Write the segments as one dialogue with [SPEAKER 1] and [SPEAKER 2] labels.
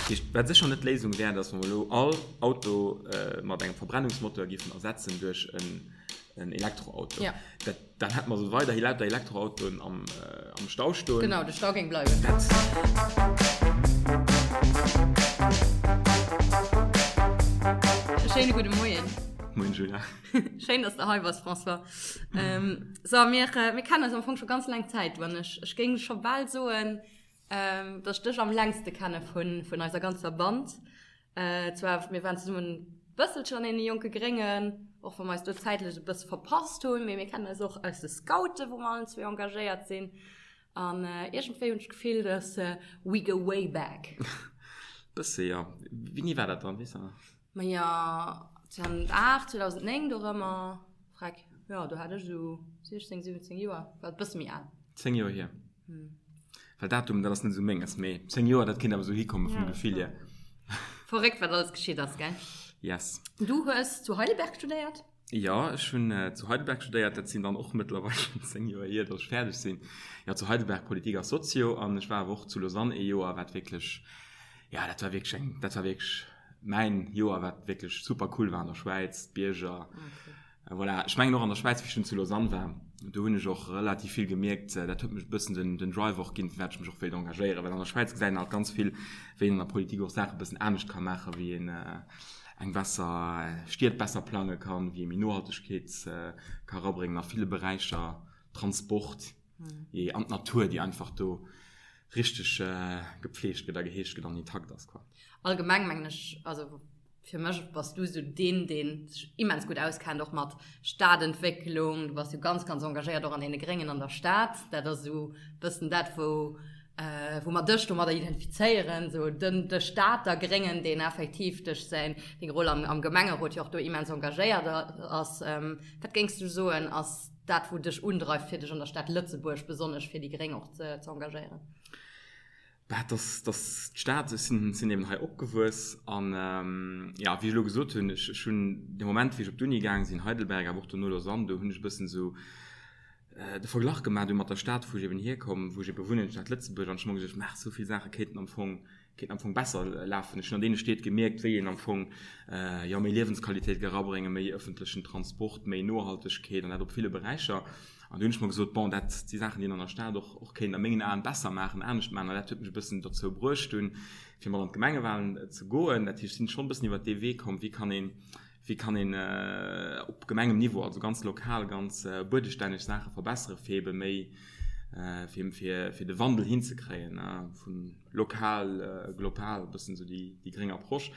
[SPEAKER 1] Dat heescht, wat sécher net d'Léisung wär, datt mer elo all Auto mat engem Verbrennungsmoteur géifen ersetzen duerch en Elektroauto.
[SPEAKER 2] Ja.
[SPEAKER 1] Dat, dann hätte mer esou weiderhi lauter Elektroautoen am, am Stau stoen.
[SPEAKER 2] Genau, de Stau géing bleiwen.
[SPEAKER 1] Dat.
[SPEAKER 2] E schéine gudde Moien.
[SPEAKER 1] Moien, Julia.
[SPEAKER 2] Schéin, dass de hei bass, François. Ähm, so, mir, mir kennen eis am Fong scho ganz laang Zäit, du an ech. Ech géing scho bal soen, ähm, dass ech dech am längste kenne vun, vun eiser ganzer Band. Äh, zwar, mir waren zesummen bësselchen an deene jonke Gréngen, och wa mer eis do zäitlech e bësse verpasst hunn, mee mir kennen eis och aus de Scouten, wou mer allen zwee engagéiert sinn. An äh, iergendwéi hunn ech d'Gefill, dass äh, we go way back.
[SPEAKER 1] Bësse, jo. Wéini war dat dann, weess de nach?
[SPEAKER 2] Maja, 2008, 2009 dorëmmer, freck, jo, do hat ech esou 16, 17 Joer, war e bësse méi al.
[SPEAKER 1] 10 Joer hier. Well Datum, dat ass net esou menges, mee 10 Joer, dat kéint awer esou hikomme vum Gefill hier.
[SPEAKER 2] Verréckt, wat alles geschitt ass, gell?
[SPEAKER 1] Yes.
[SPEAKER 2] Du hues zu Heidelberg studéiert?
[SPEAKER 1] Jo, ech hunn zu Heidelberg studéiert. Dat sinn dann och mëttlerweil schonn 10 Joer hier, datt ech fäerdeg sinn. Jo, zu Heidelberg Politik a Sozio an ech war awer och zu Lausanne ee Joer, wat wierklech, jo, dat war wierklech eng, dat war wierklech mäin Joer, wat wierklech super cool war an der Schwäiz, d'Bierger. Voilà, ech mengen och an der Schwäiz, wéi ech dunn zu Lausanne war, do hunn ech och relativ vill gemierkt, dat huet mech e bëssen den, den Drive och ginn, firwat ech mech och wéilt engagéieren, well an der Schwäiz gesäit een halt ganz vill, wéi een an der Politik och Saache e bëssen anescht ka maachen, wéi een eng besser Stied besser plange kann, wéi ee méi Nohaltegkeet ka erabréngen a ville Beräicher, Transport, jee, an d'Natur, déi einfach do richteg gepflegt gëtt a geheegt gëtt an intakt ass, quoi.
[SPEAKER 2] Allgemeng mengen ech, also fir mech bass du esou deen, deen sech immens gutt auskennt och mat Stadentwécklung. Du bass jo ganz, ganz engagéiert och an deene Gréngen an der Stad. Dat ass esou e bëssen dat, wou, wou mer dech domadder identifizéieren, esou den, de Stater Gréngen, deen effektiv duerch säin, deng Roll am, am Gemengerot jo och do immens engagéiert ass. Wat géings du soen, ass dat, wou dech undreift, fir dech an der Stad Lëtzebuerg besonnesch fir déi Gréng och ze, ze engagéieren?
[SPEAKER 1] Bah, dass, dass d'Stad, ech sinn, sinn eben hei opgewuess an, jo, wéi ech elo gesot hunn, ech, ech hunn de Moment, wéi ech op d'Uni gaang sinn, Heidelberg, awer och dono Lausanne, do hunn ech e bëssen esou de Verglach gemaach du mat der Stad, wou ech eben hierkomm, wou ech ebe wunnen, d'Stad Lëtzebuerg, an ech hu mer gesot, maach, esou vill Saache kéinten am Fong, kéinten am Fong besser lafen. Ech hunn an deene Stied gemierkt, wéi een am Fong, jo, méi Liewensqualitéit ka erabréngen, méi ëffentlechen Transport, méi Nohaltegkeet an dat op ville Beräicher. An du hunn ech mer gesot, bon, dat si Saachen, déi een an der Stad och, och kéint a mengen Aen besser maachen, anescht maachen. An dat huet mech e bëssen dozou bruecht dunn, fir mat an d'Gemengewahlen ze goen. Dat heescht, ech sinn schonn e bëssen iwwert dee Wee komm, wéi kann een, wéi kann een op Gemengemniveau, also ganz lokal, ganz buedestänneg Saache verbessere fir ebe méi, fir, fir, fir de Wandel hinzekréien, vu lokal, global, e bëssen esou déi, déi gréng Approche.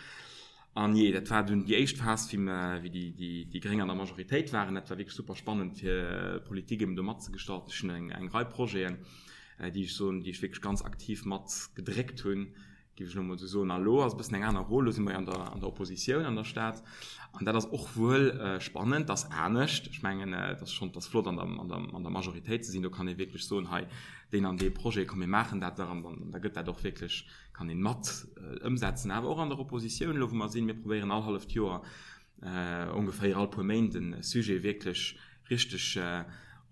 [SPEAKER 1] An jee, dat war dunn déi éischt Phas, wéi mer, wéi déi, déi, déi Gréng an der Majoritéit waren. Dat war wierklech super spannend, fir d'Politik eben do matzegestalten. Ech hunn eng, eng Rei Projeten, déi ech soen, déi ech wierklech ganz aktiv mat gedréckt hunn, géif ech elo emol esou soen. A elo ass e bëssen eng aner Roll, elo si mer jo an der, an der Oppositioun an der Stad. An dat ass och wuel spannend, dat ass anescht. Ech mengen, et ass schonn, et ass flott an der, an der, an der Majoritéit ze sinn. Do kann ee wierklech soen, hei, deen an dee Projet, komm mir maachen dat dach. An dann, da gëtt dat och wierklech kann een mat ëmsetzen, awer och an der Oppositioun elo wou mer sinn, mir probéieren all halleft Joer ongeféier all puer Méint e Sujet wierklech richteg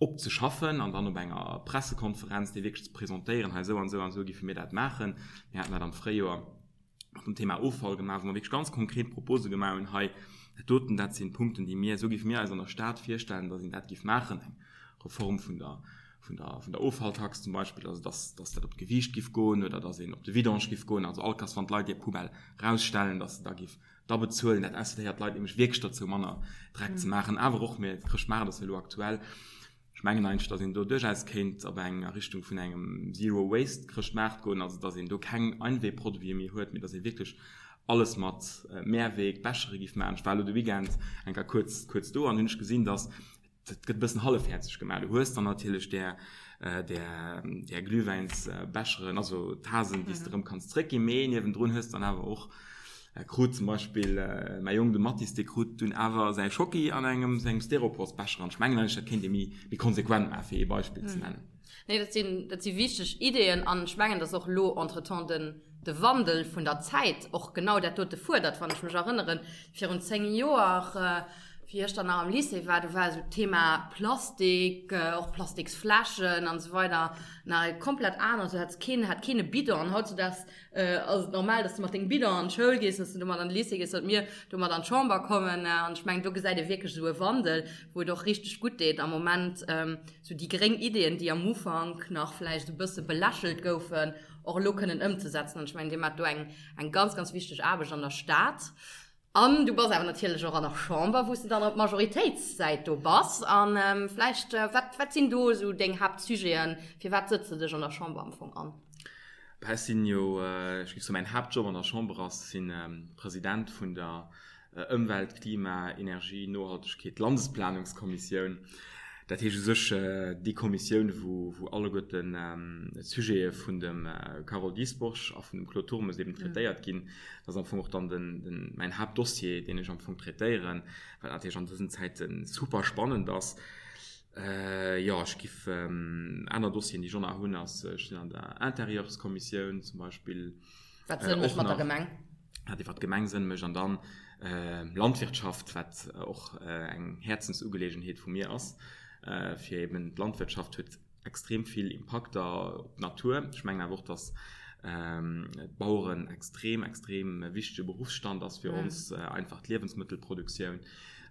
[SPEAKER 1] opzeschaffen an dann op enger Pressekonferenz dee wierklech ze presentéieren, hei esou an esou an esou géife mir dat maachen. Mir haten dat am Fréijoer mat dem Thema Offall gemaach, wou mer wierklech ganz konkret Propose gemaach hunn, hei dat doten, dat sinn d'Punkten déi mir, esou géife mir eis an der Stad virstellen, datt een dat géif maachen, eng Reform vun der vun der, vun der Offalltax zum Beispill, also dass, dass dat op d'Gewiicht giff goen oder dass een op de Vidange giff goen, also all Kass, wann d'Leit hir Poubelle rausstellen, dass se da giff da bezuelen. Dat incitéiert d'Leit nämlech wierklech dozou, manner Dreck ze maachen. Awer och, mir, Chrëschtmaart ass jo elo aktuell, ech mengen eigentlech, dass een do duerchaus kéint op eng, a Richtung vun engem Zero Waste Chrëschtmaart goen, also dass een do keng Einwegproduite méi huet, mee dass ee wierklech alles mat Mehrweg Bechere giff maachen. Ech war elo de Weekend eng Kéier kuerz, kuerz do an hunn ech gesinn, dass Dat gëtt e bëssen hallefhäerzeg gemaach. Du hues dann natierlech där, där, där Glühwäinsbecheren, also Tasen, déi s de erëm kanns zréckginn, mee niewendrun hues de dann awer och, krut zum Beispill mäi Jong, de Mathis, dee krut dunn awer säi Schocki an engem sengem Styroporsbecher. An ech mengen eigentlech, dat kéint ee méi, méi konsequent maachen, fir ee Beispill ze nennen.
[SPEAKER 2] Nee, dat sinn, dat si wichteg Ideeën an ech mengen, dass och elo entretemps den, de Wandel vun der Zäit och genau dat dote fuerdert. Wann ech mech erënneren, virun 10 Joer. Wéi ech dann nach am Lycée war, do war esou d'Thema Plastik, och Plastiksfläschen an esou weider nach e komplett anert. Do hat keen, hat keen e Bidon. An hautzudaags ass et normal, dass de mat dengem Bidon an d'Schoul gees, dass de domat an de Lycée gees, datt mir domat an d'Chamber kommen. An ech mengen, do gesäit ee wierklech esou e Wandel, wou et och richteg gutt deet am Moment, esou déi gréng Ideeën, déi am Ufank nach vläicht e bësse belächelt goufen, och elo kënnen ëmzesetzen. An ech mengen, Dir maacht do eng, eng ganz, ganz wichteg Aarbecht an der Stad. An du bass awer natierlech och an der Chamber, wou s de dann op Majoritéitssäit do bass. A vläicht, wat, wat sinn do esou deng Haaptsujeten? Fir wat sëtz de dech an der Chamber am Fong an?
[SPEAKER 1] Bah, ech sinn jo, ech géif soen, mäin Haaptjob an der Chamber ass, sinn President vun der Ëmwelt-, Klima-, Energie-, Nohaltegkeet-, Landesplanungskommissioun. Dat heescht u sech déi Kommissioun, wou, wou alleguerten d'Sujete vun dem Carole Dieschbourg a vun dem Claude Turmes eben traitéiert ginn. Dat ass am Fong och dann den, den, mäin Haaptdossier, deen ech am Fong traitéieren, wat natierlech an dësen Zäite super spannend ass. Jo, ech giff aner Dossieren, déi ech och nach hunn, ass, ech sinn an der Intérieurskommissioun zum Beispill.
[SPEAKER 2] Wat Sënn mécht mat der Gemeng.
[SPEAKER 1] Wat iwwer d'Gemeng Sënn mécht. An dann Landwirtschaft, wat och eng Häerzensugeleegenheet vu mir ass, fir eben d'Landwirtschaft huet extrem vill Impakter op d'Natur. Ech mengen awer och, datt d'Baueren extrem, extrem wichtege Beruffsstand ass fir ons, einfach d'Liewensmëttelproduktioun.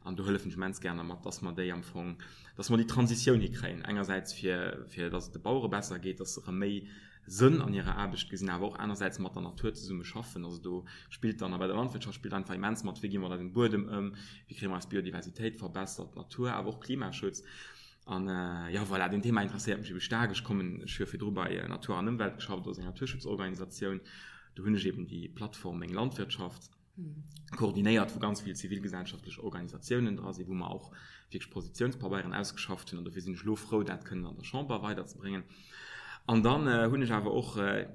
[SPEAKER 1] An do hëllefen ech immens gär mat, datt mer déi am Fong, datt mer déi Transitioun hikréien, engersäits fir, fir datt et de Bauere besser geet, datt se erëm méi Sënn an hirer Aarbecht gesinn, awer och anersäits mat der Natur zesumme schaffen. Also do spillt dann, a bei der Landwirtschaft spillt einfach immens mat, wéi gi mer mat eisem Buedem ëm, wéi kréie mer eis Biodiversitéit verbessert, d'Natur, awer och Klimaschutz. An jo, voilà, deen Thema interesséiert mech ebe staark. Ech kommen, ech hu jo virdru bei Natur an Ëmwelt geschafft, dat ass eng Naturschutzorganisatioun. Do hunn ech eben déi Plattform Meng Landwirtschaft koordinéiert, wou ganz vill zivilgesellschaftlech Organisatiounen dra sinn, wou mer och wierklech Positiounspabeieren ausgeschafft hunn. An dofir sinn ech elo frou, dat kënnen an der Chamber weiderzebréngen. An dann hunn ech awer och, ech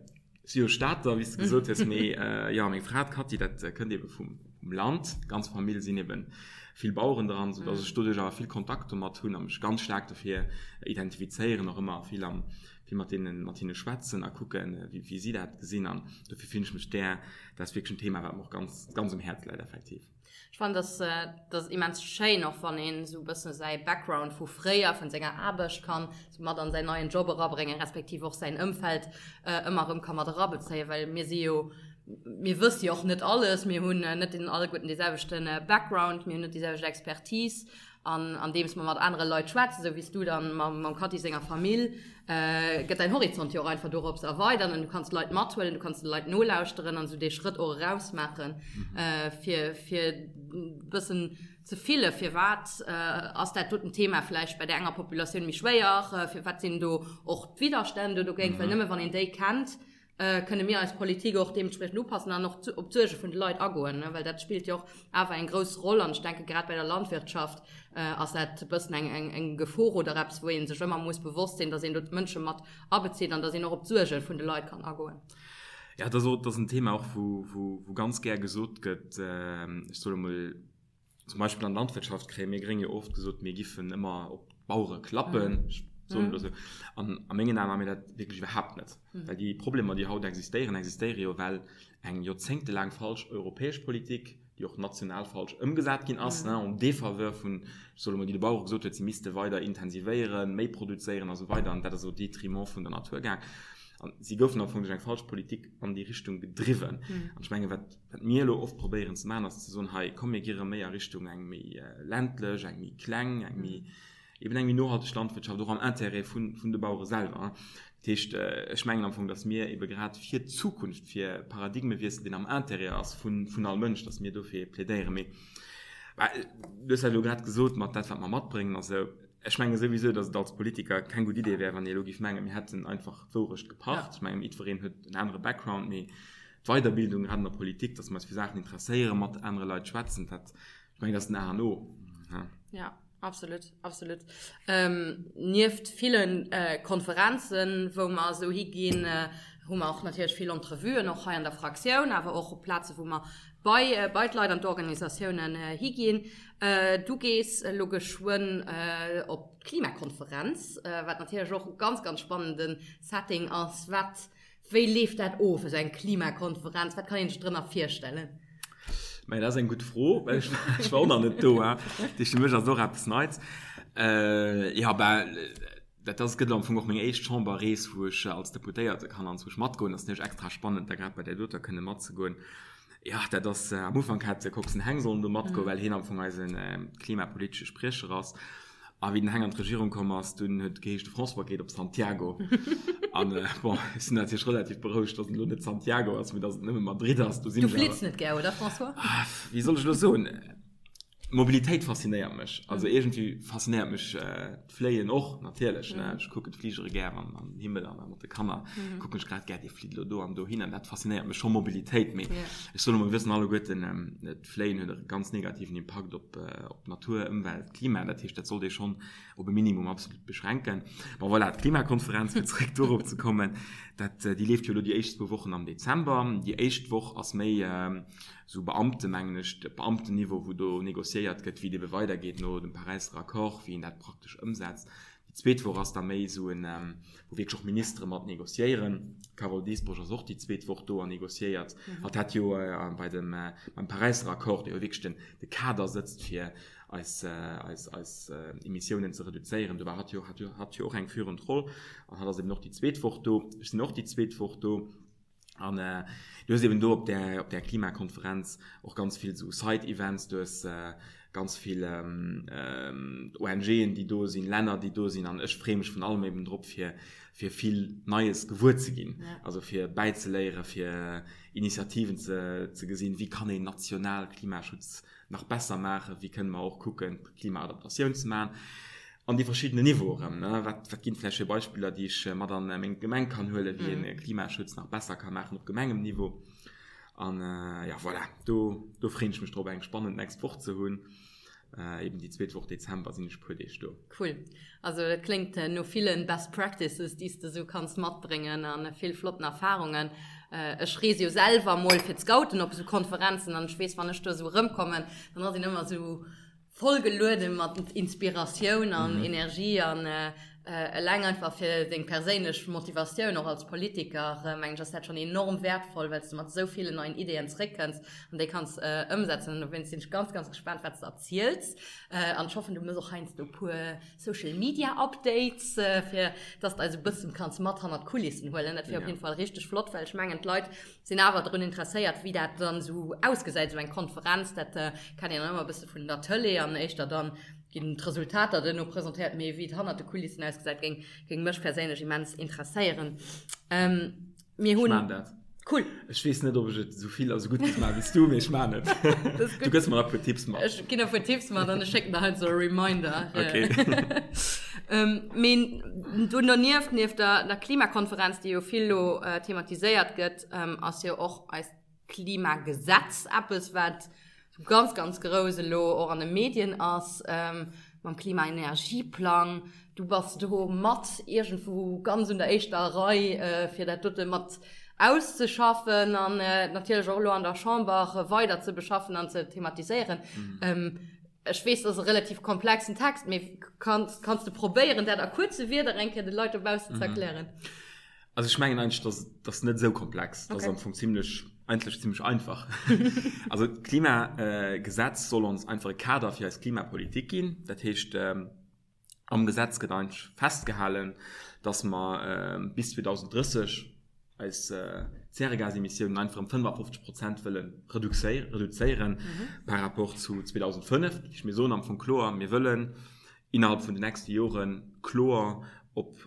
[SPEAKER 1] si jo Stater, wéi s de gesot hues, mee jo, meng Fra, d'Cathy, dat kënnt eebe vum Land. D'ganz Famill sinn eebe vill Baueren dran, soudass ech doduerch awer vill Kontakt domat hunn a mech ganz staark dofir identifizéieren, och ëmmer vill am vill mat deenen, mat hinne schwätzen a kucken, wéi, wéi si dat gesinn. An dofir fillen ech mech där, dat ass wierklech en Thema, wat mer och ganz, ganz um Häerz läit, effektiv.
[SPEAKER 2] Ech fannen, dass, dat ass immens schéin, och wann een esou e bëssen säi Background vu fréier, vun senger Aarbecht kann esou mat an säin neien Job erabréngen, respektiv och säin Ëmfeld ëmmer erëm ka mat erabezéien, well mir si jo, mir wësse jo och net alles, mir hunn net den alleguerten dee selwechte Background, mir hunn net déi selwecht Expertise An andeems mer mat anere Leit schwätzen, esou wéi s du dann mam Cathy senger Famill, gëtt däin Horizont jo och einfach dorops erweidert an du kanns Leit mathuelen, du kanns de Leit nolauschteren an esou dee Schrëtt och erausmaachen, fir fir e bëssen ze fille firwat ass dat doten Thema vläicht bei där enger Populatioun méi schwéier, firwat sinn do och d'Widderstänn do dogéint, well nëmme wann een déi kennt, kënne mir eis Politik och deementspriechend upassen an och op d'Suerge vun de Leit agoen, well dat spillt jo och awer eng grouss Roll. An ech denke grad bei der Landwirtschaft ass dat e bëssen eng, eng Gefor oder eppes, wou ee sech ëmmer muss bewosst sinn, datt een do d'Mënsche mat abezitt an datt een och op d'Suerge vun de Leit kann agoen.
[SPEAKER 1] Jo, dat ass och, dat ass en Thema och, wou, wou ganz gär gesot gëtt, ech soe mol, Zum Beispill an der Landwirtschaft kréie mir Gréng jo oft gesot, mir giffen ëmmer op d'Bauere klappen. Ech soen elo esou. An a mengen Aen maache mir dat wierklech iwwerhaapt net. Well déi Problemer, déi haut existéieren, existéiere jo, well eng joerzéngtelaang falsch europäesch Politik, déi och national falsch ëmgesat ginn ass, en défaveur vun, ech soe elo mol, déi de Bauere gesot huet, si misste weider intensivéieren, méi produzéieren a sou weider, an dat ass au détriment vun der Natur gaang. An si goufen am Fong duerch eng falsch Politik an déi Richtung gedriwwen. An ech menge wat Wat mir elo oft probéieren ze maachen, ass ze soen, hei, komm mir gi rëm méi a Richtung eng méi ländlech, eng méi kleng, eng méi, eben eng méi nohalteg Landwirtschaft, och am Intérêt vun, vun de Bauere selwer. Dat heescht, ech mengen am Fong, datt mir ebe grad fir d'Zukunft, fir Paradigmewiessel, deen am Intérêt ass vun, vun all Mënsch, datt mir dofir plädéieren. Mee, bah, du hues dat elo grad gesot mat dat, wat mer matbréngen a sou. Ech menge souwisou, datt et als Politiker keng gutt Idee wär, wann ee elo géif mengen, mir hätten einfach d'Wourecht gepacht. Ech mengen, jiddwereen huet en anere Background, mee D'Weiderbildung, grad an der Politik, dass mer eis fir Saachen interesséieren, mat anere Leit schwätzen, dat, ech mengen, dat ass den A an O.
[SPEAKER 2] Ja, absolut, absolut. Nieft ville Konferenzen, wou mer esou higinn, hu mer och natierlech vill Entrevuen, och hei an der Fraktioun, awer och op Plaze wou mer bei, bei d'Leit an d'Organisatiounen higinn. Du gees elo geschwënn op d'Klimakonferenz, wat natierlech och e ganz, ganz spannende Setting ass. Wat Wéi leeft dat of, esou eng Klimakonferenz? Wat kann een sech drënner virstellen?
[SPEAKER 1] Mä dat ass eng gutt Fro, well ech, ech war och nach net do. Dat heescht, fir mech ass et och eppes Neits. Jo, ben, dat ass, gëtt am Fong och meng éischt Chamberrees, wou ech als Deputéierte kann anzwousch matgoen. Dat ass natierlech extra spannend, da grad bei där doter kënne matzegoen. Jo, dat ass, am Ufank hat de Coxen Heng sollen do matgoen, well hien am Fong eise klimapolitesche Spriecher ass. A wéi den Heng an d'Regierung komm ass, dunn huet et geheescht, de François geet op Santiago. An bon, ech sinn natierlech relativ berouegt, datt et elo net Santiago ass, mee datt et nëmme Madrid ass.
[SPEAKER 2] Do sinn Du ech awer. Flitt net gär, oder François?
[SPEAKER 1] Wéi soll ech elo soen? Mobilitéit faszinéiert mech. Also iergendwéi faszinéiert mech d'Fléien och natierlech, ne. Ech kucken d'Fligere gär an den Himmel an mat de Kanner kucken ech grad gär, dee flitt elo do an dohin an dat faszinéiert mech scho, Mobilitéit. Mee ech soen emol, mir wëssen alleguerten, d'Fléien huet e ganz negativen Impakt op d'Natur, Ëmwelt, Klima. Dat heescht, dat sollt ee schonn op e Minimum absolut beschränken. Bon, voilà, d'Klimakonferenz, fir zeréck dorop ze kommen, dat, déi leeft jo elo déi éischt zwou Wochen am Dezember. Déi éischt Woch ass méi esou Beamte, mengen ech, de Beamtenniveau, wou do négociéiert gëtt, wéi et ebe weidergeet no dem Paräisser Accord, wéi een dat praktesch ëmsetzt. Déi zweet Woch ass da méi esou en, wou wierklech och Ministere mat négociéieren. D'Carole Dieschbourg ass och déi zweet Woch do an négociéiert. Hatt hat jo bei dem, beim Paräisser Accord, dee jo wierklech den, de Kader sëtzt fir eis, eis, eis Emissiounen ze reduzéieren, do war hatt jo, hat jo, hat jo och eng führend Roll. An hatt ass eben och déi zweet Woch do. Ech sinn och déi zweet Woch do. An du hues eben do op där, op där Klimakonferenz och ganz vill esou Side-Events, du hues ganz vill ONGen, déi do sinn, Länner, déi do sinn. An ech freeë mech vun allem eben drop, fir, fir vill Neies gewuer ze ginn, also fir bäizeléieren, fir Initiativen ze, ze gesinn, wéi kann een national Klimaschutz nach besser maachen, wéi kënne mer och kucken, Klimaadaptatioun ze maachen. An déi verschiddenen Niveaue erëm, ne? Wat, wat ginn et vläicht fir Beispiller, déi ech mat an meng Gemeng kann huelen, wéi een Klimaschutz nach besser ka maachen op Gemengemniveau? An ja, voilà, do, do freeën ech mech drop, eng spannend nächst Woch ze hunn. Eben déi zweet Woch Dezember sinn ech e puer Deeg do.
[SPEAKER 2] Cool. Also dat kléngt no villen Best Practices, déi s de esou kanns matbréngen a vill flotten Erfarungen. Ech reese jo selwer mol fir d'Scouten op esou Konferenzen an ech weess, wann ech do esou erëmkommen, dann ass een ëmmer esou, Voll geluede mat Inspiratioun an Energie an eleng einfach fir deng perséinlech Motivatioun och als Politiker, mengen ech, ass dat schonn enorm wäertvoll, well s de mat esou villen neien Ideeën zréckkënns an déi kanns ëmsetzen. An dowéinst sinn ech ganz, ganz gespaant, wat s de erziels. An ech hoffen, du mëss och heiansdo e puer Social Media Updates, fir dass de eis e bëssen kanns mat hannert d'Kulissen huelen. Dat wier op jeden Fall richteg flott, well ech mengen, d'Leit sinn awer drun interesséiert, wéi dat dann esou ausgesäit, esou eng Konferenz. Dat kennt een dann ëmmer e bësse vun der Tëlee an éischter dann ginn d'Resultater duerno presentéiert, mee wéi et hannert de Kulissen ausgesäit, géing, géing mech perséinlech immens interesséieren.
[SPEAKER 1] Mir hunn. Ech maan dat.
[SPEAKER 2] Cool.
[SPEAKER 1] Ech weess net, ob ech et esou vill a sou gutt géif maachen wéi s du, mee ech maan et. Du gëss mer nach e puer Tipps
[SPEAKER 2] mat. Ech ginn der e puer Tipps mat an ech schécken der heiansdo e Reminder. Okay. Mee do donieft, nieft der, der Klimakonferenz, déi jo vill elo thematiséiert gëtt, ass jo och eist Klimagesetz eppes, wat ganz, ganz grouss elo och an de Medien ass, mam Klimaenergieplang. Du bass do mat iergendwou ganz un der éischter Rei, fir dat dote mat auszeschaffen an natierlech och elo an der Chamber weider ze beschaffen an ze thematiséieren. Ech weess, dat ass e relativ komplexen Text, mee kanns, kanns de probéieren, dat a kuerze Wierder eng Kéier de Leit dobaussen ze erklären?
[SPEAKER 1] Also ech mengen eigentlech, dass dat net esou komplex. Dat ass am Fong zimmlech, eigentlech zimmlech einfach. Also d'Klimagesetz soll ons einfach e Kader fir eis Klimapolitik ginn. Dat heescht, am Gesetz gëtt eigentlech festgehalen, dass mer bis 2030 eis Zäregasemissiounen einfach ëm 55 Prozent wëlle reduzéieren par rapport zu 2005. Dat heescht, mir soen am Fong kloer, mir wëllen innerhalb vun den nächste Jore kloer op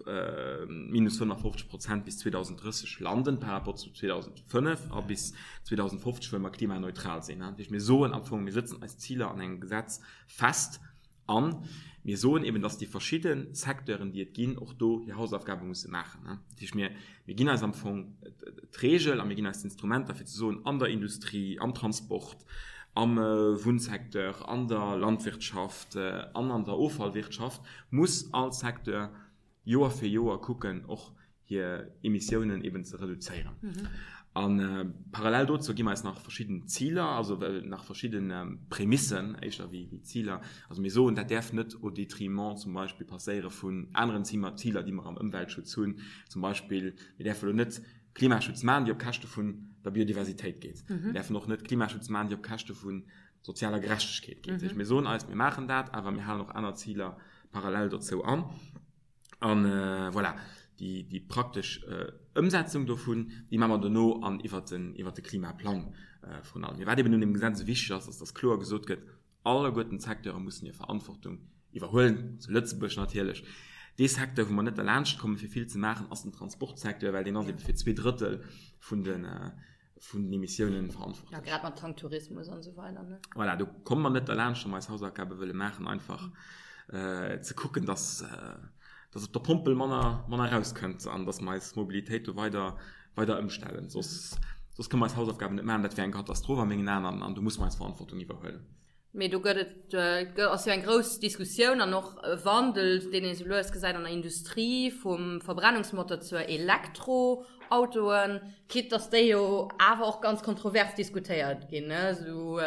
[SPEAKER 1] minus 55 Prozent bis 2030 landen par rapport zu 2005 a bis 2050 wëlle mer klimaneutral sinn. Dat heescht, mir soen am Fong, mir sëtzen eis Ziler an engem Gesetz fest A mir soen eben, dass déi verschidde Secteuren, déi et ginn, och do hir Hausaufgabe musse maachen. Dat heescht, mir, mir ginn eis am Fong d'Regel a mir ginn eis d'Instrumenter, fir ze soen, an der Industrie, am Transport, am Wunnsecteur, an der Landwirtschaft an an der Offallwirtschaft muss all Secteur Joer fir Joer kucken, och hir Emissiounen eben ze reduzéieren. A parallel dozou gi mer eis nach verschidden Ziler, also nach verschidde Prämissen éischter wéi Ziler. Also mir soen, dat däerf net au détriment zum Beispill passéiere vun aneren Ziler, déi mer am Ëmweltschutz hunn. Zum Beispill, mir däerfe elo net Klimaschutz maachen, déi op Käschte vun. der Biodiversitéit geet. Mir däerfen och net Klimaschutz maachen, déi op Käschte vu sozialer Gerechtegkeet geet. Dat heescht, mir soen eis, mir maachen dat, awer mir halen och aner Ziler parallel dozou an. An voilà, déi, déi praktesch Ëmsetzung dovun, déi maache mer dono an iwwert den, iwwert de Klimaplang vrun allem. Mee wat eben un deem Gesetz esou wichteg ass, ass, dass kloer gesot gëtt, Alleguerten d'Secteure mussen hir Verantwortung iwwerhuelen, zu Lëtzebuerg natierlech. Dee Secteur, wou mer net derlaanscht kommen, fir vill ze maachen, ass den Transportsecteur, well deen ass ebe fir 2/3 vun de, vun den Emissiounen verantwortlech.
[SPEAKER 2] Ja, grad mat Tanktourismus an esou weider, ne?
[SPEAKER 1] Voilà, do komme mer net derlaanscht, wa mer eis Hausaufgabe wëlle maachen, einfach ze kucken, dass, dass op der Pompel manner, manner erauskënnt an dass mer eis Mobilitéit do weider, weider ëmstellen. Soss, soss kënne mer eis Hausaufgaben net maachen. Dat wär eng Katastroph a mengen Aen an, an do musse mer eis Verantwortung iwwerhuelen.
[SPEAKER 2] Mee do gëtt et, ass jo eng grouss Diskussioun an och e Wandel, deen ee sou lues gesäit an der Industrie, vum Verbrennungsmotor zur Elektroautoen, quitte dass déi jo awer och ganz kontrovers diskutéiert ginn, ne, sou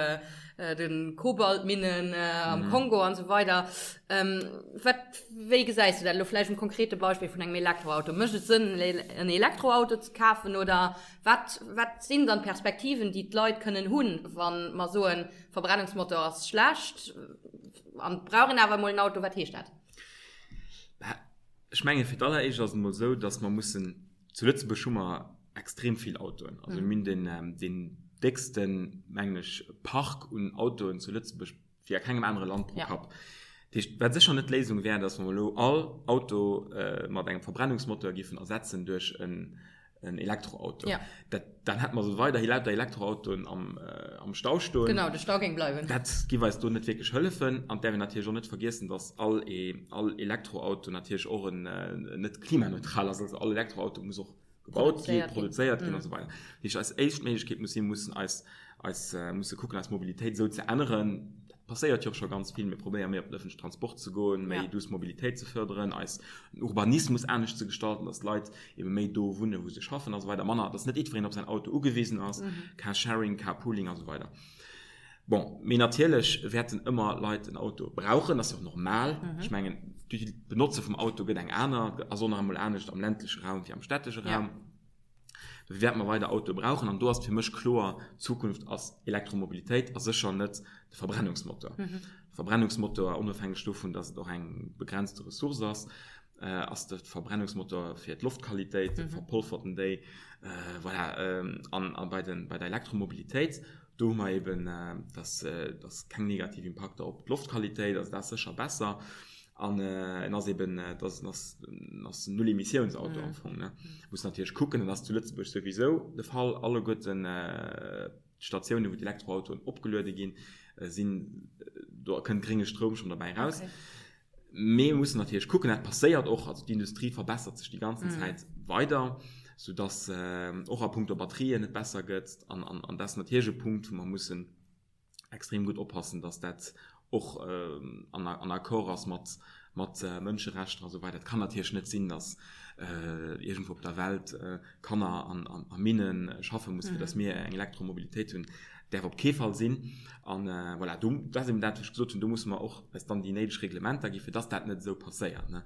[SPEAKER 2] de Kobaltminnen am Kongo an esou weider. Wat, wéi gesäis du dat elo vläicht um konkrete Beispill vun engem Elektroauto? Mécht et Sënn, en Elektroauto ze kafen oder wat, wat sinn dann d'Perspektiven, déi d'Leit kënnen hunn, wa mer soen, Verbrennungsmotor ass schlecht an brauch een awer emol en Auto, wat heescht dat?
[SPEAKER 1] Ech menge fir d'alleréischt ass et emol esou, datt mer mussen, zu Lëtzebuerg hu mer extrem vill Autoen, also mir hunn den, deen décksten, mengen ech, Park un Autoen zu Lëtzebuerg wéi a kengem anere Land pro Kapp. Dat heescht, wat sécher net d'Léisung wär, datt mer elo all Auto mat engem Verbrennungsmotor géifen ersetzen duerch en en Elektroauto.
[SPEAKER 2] Ja.
[SPEAKER 1] Dat, dann hätte mer so weiderhi lauter Elektroautoen am, äh, am Stau stoen.
[SPEAKER 2] Genau, de Stau géing bleiwen.
[SPEAKER 1] Dat giff eis do net wierklech hëllefen. An däerf een natierlech och net vergiessen, dass all, e, all Elektroauto natierlech och en, äh, net klimaneutral ass. Also all Elektroauto muss och gebaut ginn, produzéiert ginn mm. an esou weider. Dat heescht, eis éischt Méiglechkeet muss sinn, mussen eis, eis, äh, musse kucken, eis Mobilitéit esou ze änneren, passéiert jo och scho ganz vill, mir probéiere méi op den ëffentlechen Transport ze goen, méi duuss Mobilitéit ze fërderen, eis Urbanismus anescht ze gestalten, dass d'Leit ebe méi do wunnen, wou se schaffen a sou weider, manner, dass net jiddwereen op säin Auto ugewisen ass, Carsharing, Carpooling a sou weider. Bon, mee natierlech wäerten ëmmer Leit en Auto brauchen, dat ass jo och normal. Ech mengen, d'Benotze vum Auto gëtt eng aner, ass och nach emol anescht am ländleche Raum wéi am städtesche Raum. Dofir wäerte mer weider Autoe brauchen. An do ass et fir mech kloer, d'Zukunft ass Elektromobilitéit a sécher net de Verbrennungsmotor. De Verbrennungsmotor, onofhängeg dovun, datt et och eng begrenzte Ressource ass, ass de Verbrennungsmotor fir d'Loftqualitéit, verpolfert en déi. Voilà. An a bei den, bei der Elektromobilitéit, do hu mer eben, datt, datt keng negativ Impakter op d'Loftqualitéit, also dat ass sécher besser. An en ass eben, et ass, en ass, en ass en Null-Emissiouns-Auto am Fong, ne. Muss natierlech kucken, dat ass zu Lëtzebuerg souwisou de Fall, alleguerten d'Statiounen, wou d'Elektroautoen opgeluede ginn, sinn, do kënnt grénge Stroum schonn derbäi eraus. Mee mir mussen natierlech kucken, dat passéiert och, also d'Industrie verbessert sech déi ganzen Zäit weider, soudass och a punkto Batterien et besser gëtt. An, an, an dat ass natierlech e Punkt, wou mer mussen extrem gutt oppassen, dass dat och an Accord ass mat mat Mënscherechter a sou weider. Et kann natierlech net sinn, dass iergendwou op der Welt Kanner an a Minne schaffe mussen, fir dass mir eng Elektromobilitéit hunn. Däerf op kee Fall sinn. An voilà, do, dat ass eben dat, wat ech gesot hunn, do musse mer och eis dann déi néideg Reglementer gi fir dass dat net esou passéiert, ne.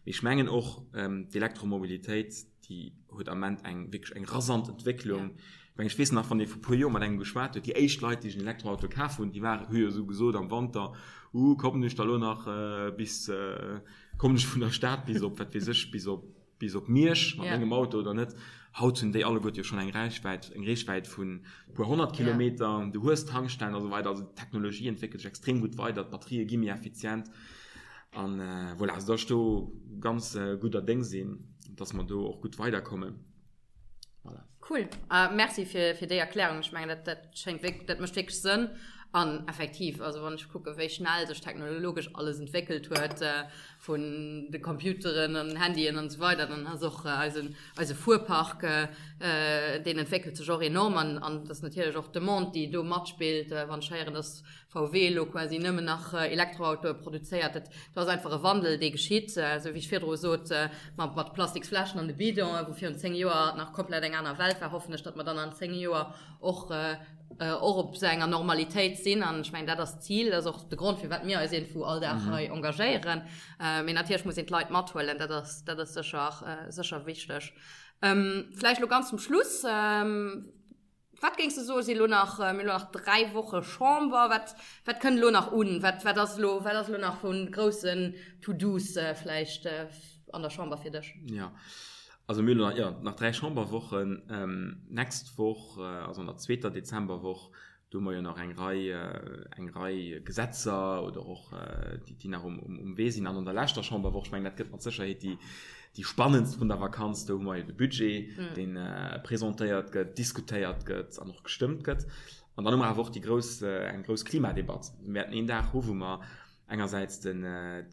[SPEAKER 1] Mee ech mengen och, d'Elektromobilitéit, déi huet am Ament eng wierklech eng rasant Entwécklung. Ech mengen, ech weess nach, wann ee vu puer Joer mat engem geschwat huet, déi éischt Leit, déi sech en Elektroauto kaf hunn, déi waren, hu jo esou gesot am Wanter, Uh, kommen ech da lo nach bis, kommen ech vun der Stad bis op, wat weess ech, bis op, bis op Miersch mat mengem Auto oder net? Haut hunn déi alleguerte jo schonn eng Räichwäit, eng Reechwäit vun e puer 100 Kilometer, du hues Tankstellen a sou weider. Also d'Technologie entwéckelt sech extrem gutt weider, d'Batterië gi méi effizient. An voilà, also datt ech do ganz gudder Déng sinn, datt mer do och gutt weiderkommen.
[SPEAKER 2] Voilà. Cool. Merci fir, fir déi Erklärung. Ech mengen, dat, dat schéngt wierk, dat mécht wierklech Sënn. An effektiv, also wann ech kucke wéi schnell sech technologesch alles entwéckelt huet, vun de Computeren an Handyen an esou weider, dann ass och eisen, eise Fuerpark, deen entwéckelt sech och enorm. An, an dat ass natierlech och d'Demande, déi do matspillt. Wann ech héieren, datt VW elo quasi nëmmen nach Elektroautoe produzéiert. Dat ass einfach e Wandel, dee geschitt, esou wéi ech virdru sot, mat mat Plastiksfläschen an de Bidonen, wou virun 10 Joer nach komplett eng aner Welt war, hoffen ech, datt mer dann an 10 Joer och och op esou enger Normalitéit sinn. An ech mengen, dat ass d'Zil, dat ass och de Grond, firwat mir eis iergendwou all Dag hei engagéieren. Mee natierlech muss een d'Leit mathuelen, dat ass dat ass sécher sécher wichteg. Vläicht elo ganz zum Schluss. Wat géings de soen, si lo nach, mir hu lo nach 3 Woche Chamber, wat, wat kënnt elo nach un? Wat, wat ass elo, wat ass elo nach vu groussen To-Dos vläicht an der Chamber fir dech?
[SPEAKER 1] Jo, also mir hu lo nach, jo, nach 3 Chamberwochen. Nächst Woch, also an der zweeter Dezemberwoch, do hu mer jo nach eng Rei, eng Rei Gesetzer oder och déi, déi nach um, um Wee sinn. An an der leschter Chamberwoch, ech mengen, dat gëtt mat Sécherheet déi, Déi spannendst vun der Vakanz, do hu mer jo de Budget, dee presentéiert gëtt, diskutéiert gëtt an och gestëmmt gëtt. An dann hu mer awer och déi grouss, eng grouss Klimadebatt. Mir wäerten een Dag hu wou mer engersäits de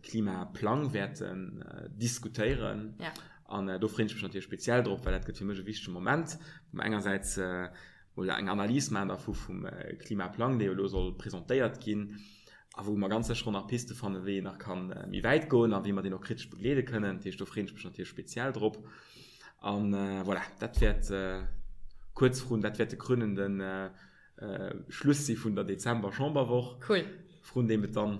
[SPEAKER 1] Klimaplang wäerten diskutéieren. An do freeën ech mech natierlech speziell drop, well dat gëtt fir mech e wichtege Moment, wou mer engersäits mol eng Analys maachen dervu vum Klimaplang, dee jo elo soll presentéiert ginn a wou mer ganz sécher och nach Piste fannen, wéi een nach ka méi wäit goen a wéi mer deen och kritesch begleede kënnen. Dat heescht, do freeën ech mech natierlech speziell drop. A voilà, dat wäert kuerz vrun, dat wäert de krönende Schluss si vun der Dezember-Chamberwoch, vrun deem et dann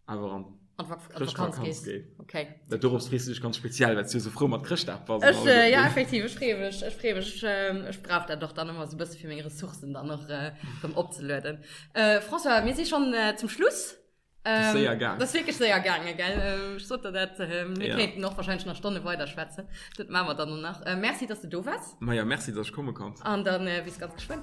[SPEAKER 1] awer an
[SPEAKER 2] An d'Vakanz gees.
[SPEAKER 1] Okay. Dat dorops frees du dech ganz speziell, well s du esou frou mat Chrëschtdag
[SPEAKER 2] bass. Ech, äh, ja, effektiv, ech freeë mech, ech freeë mech. Ech, ähm, ech brauch dat och dann ëmmer esou e bësse fir meng Ressourcen dann och äh, rëm opzelueden. Äh, François, mir si schonn äh, zum Schluss.
[SPEAKER 1] Das ass séier gaang.
[SPEAKER 2] Das ass wierklech séier gaangen, gell? Ähm, ech sot der dat, äh, mir ja. kéinten och wahrscheinlech nach Stonne weiderschwätzen. Dat maache mer dann och nach. Äh, merci, dass du do waars.
[SPEAKER 1] Ma ja, merci, dass ech komme konnt.
[SPEAKER 2] An dann äh, bis ganz geschwënn.